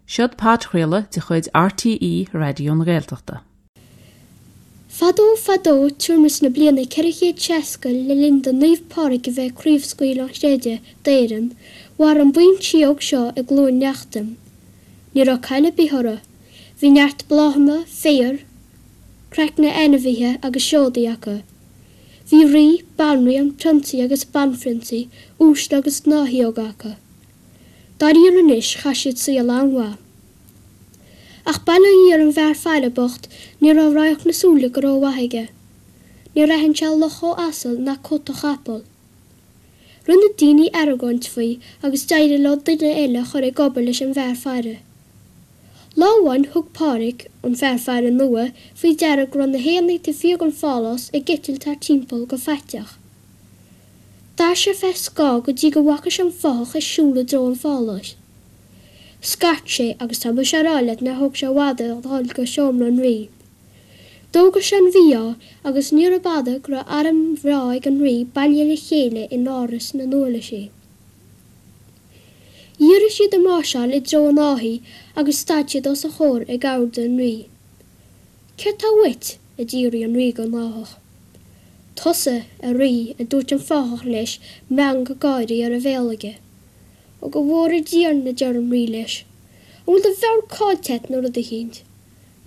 Seod podchraoladh de chuid RTÉ Raidió na Gaeltachta. Fadó fadó tuairim is na bliana 460 le linn do Naomh Pádraig a bheith ag craobhscaoileadh an chreidimh d'Éirinn, mhair an buíon síóg seo i gCluain Neachtain. Ní raibh caill ar bith orthu. Bhí neart bláthanna, féar, craicne ainmhithe agus seodaí acu. Bhí rí, banríon, prionsaí agus banphrionsaí, uaisle agus gnáthshíóga acu. Dáiríre anois, chaith siad saol an-mhaith. Ach bail ó Dhia ar an bhfear faire bocht, ní raibh radharc na súile go rómhaith aige. Níor aithin sé luch ó asal ná cut ó chapall. Rinne daoine argóint faoi agus d'éirigh leo duine eile a chur ag obair leis an bhfear faire. Lá amháin thug Pádraig, an fear faire nua, faoi deara go raibh na héanaí taobh thiar den phálás ag eitilt thart timpeall go faiteach. D'fhair sé feadh scáth go dtí go bhfaca sé an fathach ag siúl i dtreo an pháláis. Scairt sé agus tá mise á rá leat nár thóg sé i bhfad air a dhul go seomra an rí. D'fhógair sé an mhí-ádh agus níorbh fhada go raibh arm bhreá ag an rí bailithe le chéile in áras na n-uirlisí. Dhírigh siad a máirseáil i dtreo an fhathaigh agus stad siad os a chomhair ag ordú an rí. Céard tá uait? a d'fhiafraigh an rí den fhathach. Tusa, a rí, a dúirt an fathach leis, meangadh gáirí ar a bhéal aige. Ó go bhfóire Dia orainn, a deir an rí leis. An bhfuil do mheabhair caillte a't nó rud eicínt?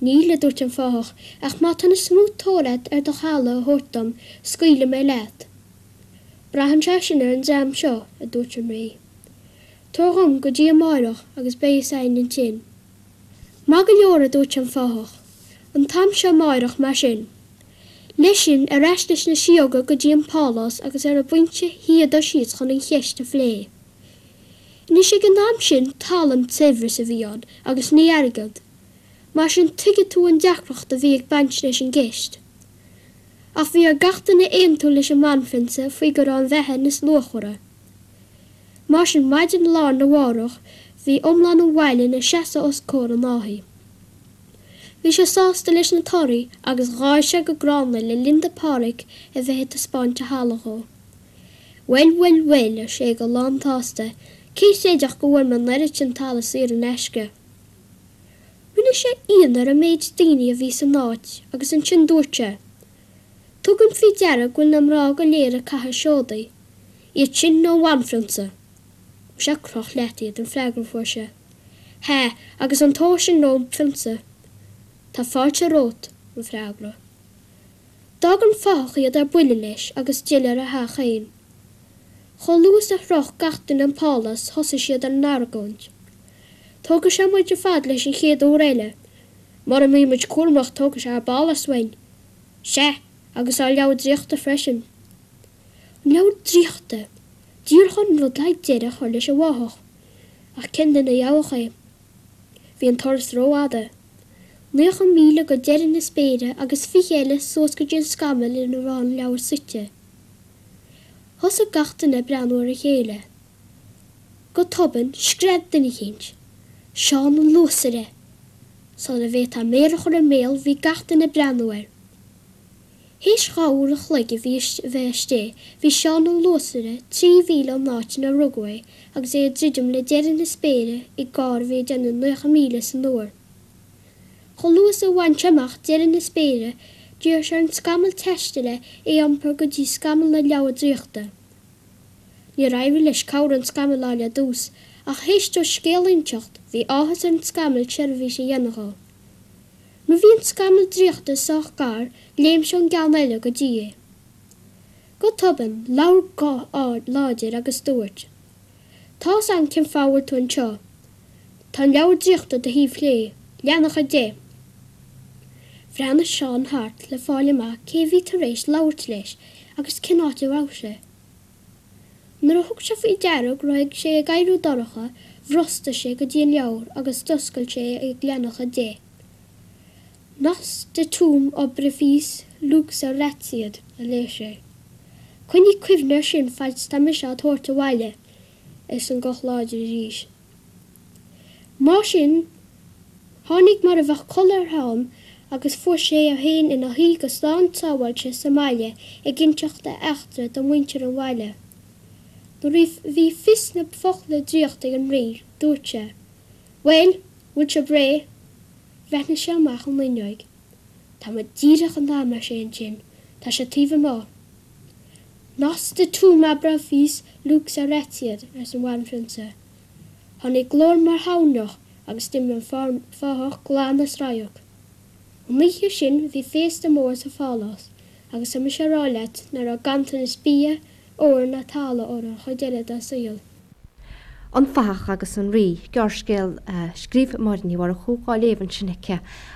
Níl, a dúirt an fathach, ach má tá an is mó tóir a't ar do thalamh a thabhairt dom, scaoilfidh mé leat. Braitheann sé sin ar an dream seo, a dúirt an rí. Tabhair dhom go dtí amáireach agus beidh fhios a'inn ansin. Maith go leor, a dúirt an fathach. An t-am seo amáireach, mar sin. Leis sin, ar ais leis na síóga go dtí an pálás agus ar an bpointe shuíodar síos chun an cheist a phlé. Anois ag an am sin talamh an saibhreas a bhí ann agus ní airgead. Mar sin tuigfidh tú an deacracht a bhí ag baint leis an gceist. Ach bhí ar gach duine aontú leis an mbanphrionsa faoi go raibh an bheatha níos luachmhara. Mar sin maidin lá arna mhárach bhí iomlán an bhaile ina seasamh os comhair an fhathaigh. Bhí sé sásta leis na torthaí agus gháir sé go gránna le linn do Phádhraic a bheith ag taispeáint a thalamh dhó. Bhuel, bhuel, bhuel, ar sé go lán-tsásta, cé chreidfeadh go bhfuair mé an oiread sin talaimh saor in aisce? Rinne sé ionadh ar an méid daoine a bhí san áit agus ansin dúirt sé, Tugaim faoi deara go bhfuil na mná go léir ag caitheamh seodaí, iad sin nó an bhanphrionsa. Muise croch leat iad, an freagra a fuair sé. Hea, agus an t-ór sin ón bprionsa. Tá fáilte romhat, an freagra. D'fhág an fathach iad ar buile leis agus d'fhill ar a theach féin. Chomh luath is a shroich gach duine an pálás thosaigh siad ar an argóint. Tógfaidh sé muid ar fad leis an chéad uair eile. Mura mbí muid cúramach tógfaidh sé ár bpálás uainn. Sea, agus ár leabhar draíochta freisin. An leabhar draíochta! Díreach an rud le deireadh a chur leis an bhfathach. Ach cén duine a gheobhadh é? Bhí an turas rófhada. 90 míle go deireadh na spéire agus 20 eile suas go dtí an scamall ina raibh an leabhar suite. Thosaigh gach duine ag breathnú ar a chéile. Go tobann, scread duine eicínt. Seán an Luasaire! Sula bhféadfá méar a chur i mbéal bhí gach duine ag breathnú air. Théis 2 uair an chloig a bhí a bheith istigh, bhí Seán an Luasaire 3 mhíle ón áit inar rugadh é agus é ag druidim le deireadh na spéire i gcarr a bhí ag déanamh 90 míle san uair. Chomh luath is a bhain sé amach deireadh na spéire, d'iarr sé ar an scamall taistil é a iompar go dtí scamall na leabhar draíochta. Níor éirigh leis cabhair an scamaill a fháil ar dtús, ach théis dó scéal a inseacht, bhí áthas ar an scamall seirbhís a dhéanamh dhó. Nuair bhí an scamall draíochta sách gar, léim sé ón gceann eile go dtí é. Go tobann, labhair guth láidir agus dúirt, Tá's a'm cén fáth a bhfuil tú anseo. Tá an leabhar draíochta do thaobh chlé, leathanach 10. Bhreathnaigh Seán thart le fáil amach cé a bhí tar éis labhairt leis agus cén áit a raibh sé. Nuair a thug sé faoi deara go raibh sé ag éiriú dorcha, bhrostaigh sé go dtí an leabhar agus d'oscail sé é ag leathanach 10. Nos datum obrifice lux ratiad, a léigh sé. Coinnigh cuimhne air sin faid 's tá mise á tabhairt abhaile, arsa an guth láidir arís. Mar sin, tháinig mar a bheadh codladh ar Sheán agus fuair sé é féin ina shuí go slán sábháilte sa mbaile ag inseacht a eachtra do mhuintir an bhaile. Nuair a bhí fios na bhfocla draíochta ag an Rí, dúirt sé, Bhuel! Bhfuil sibh réidh? Bhreathnaigh sé amach an fhuinneoig. Tá muid díreach in am, ar sé ansin, tá sé taobh amuigh. Noster tum abra vis lux aretiat, arsa an bhanphrionsa. Tháinig glór mar thoirneach agus d'imigh an fathach glan as radharc. An oíche sin bhí féasta mór sa phálás agus tá mise a rá leat nach raibh ganntanas bia, óir ná talamh orthu an chuid eile dá saol. An Fathach agus an Rí, gearrscéal a scríobh Máire Ní Mhurchú, á léamh ansin aici.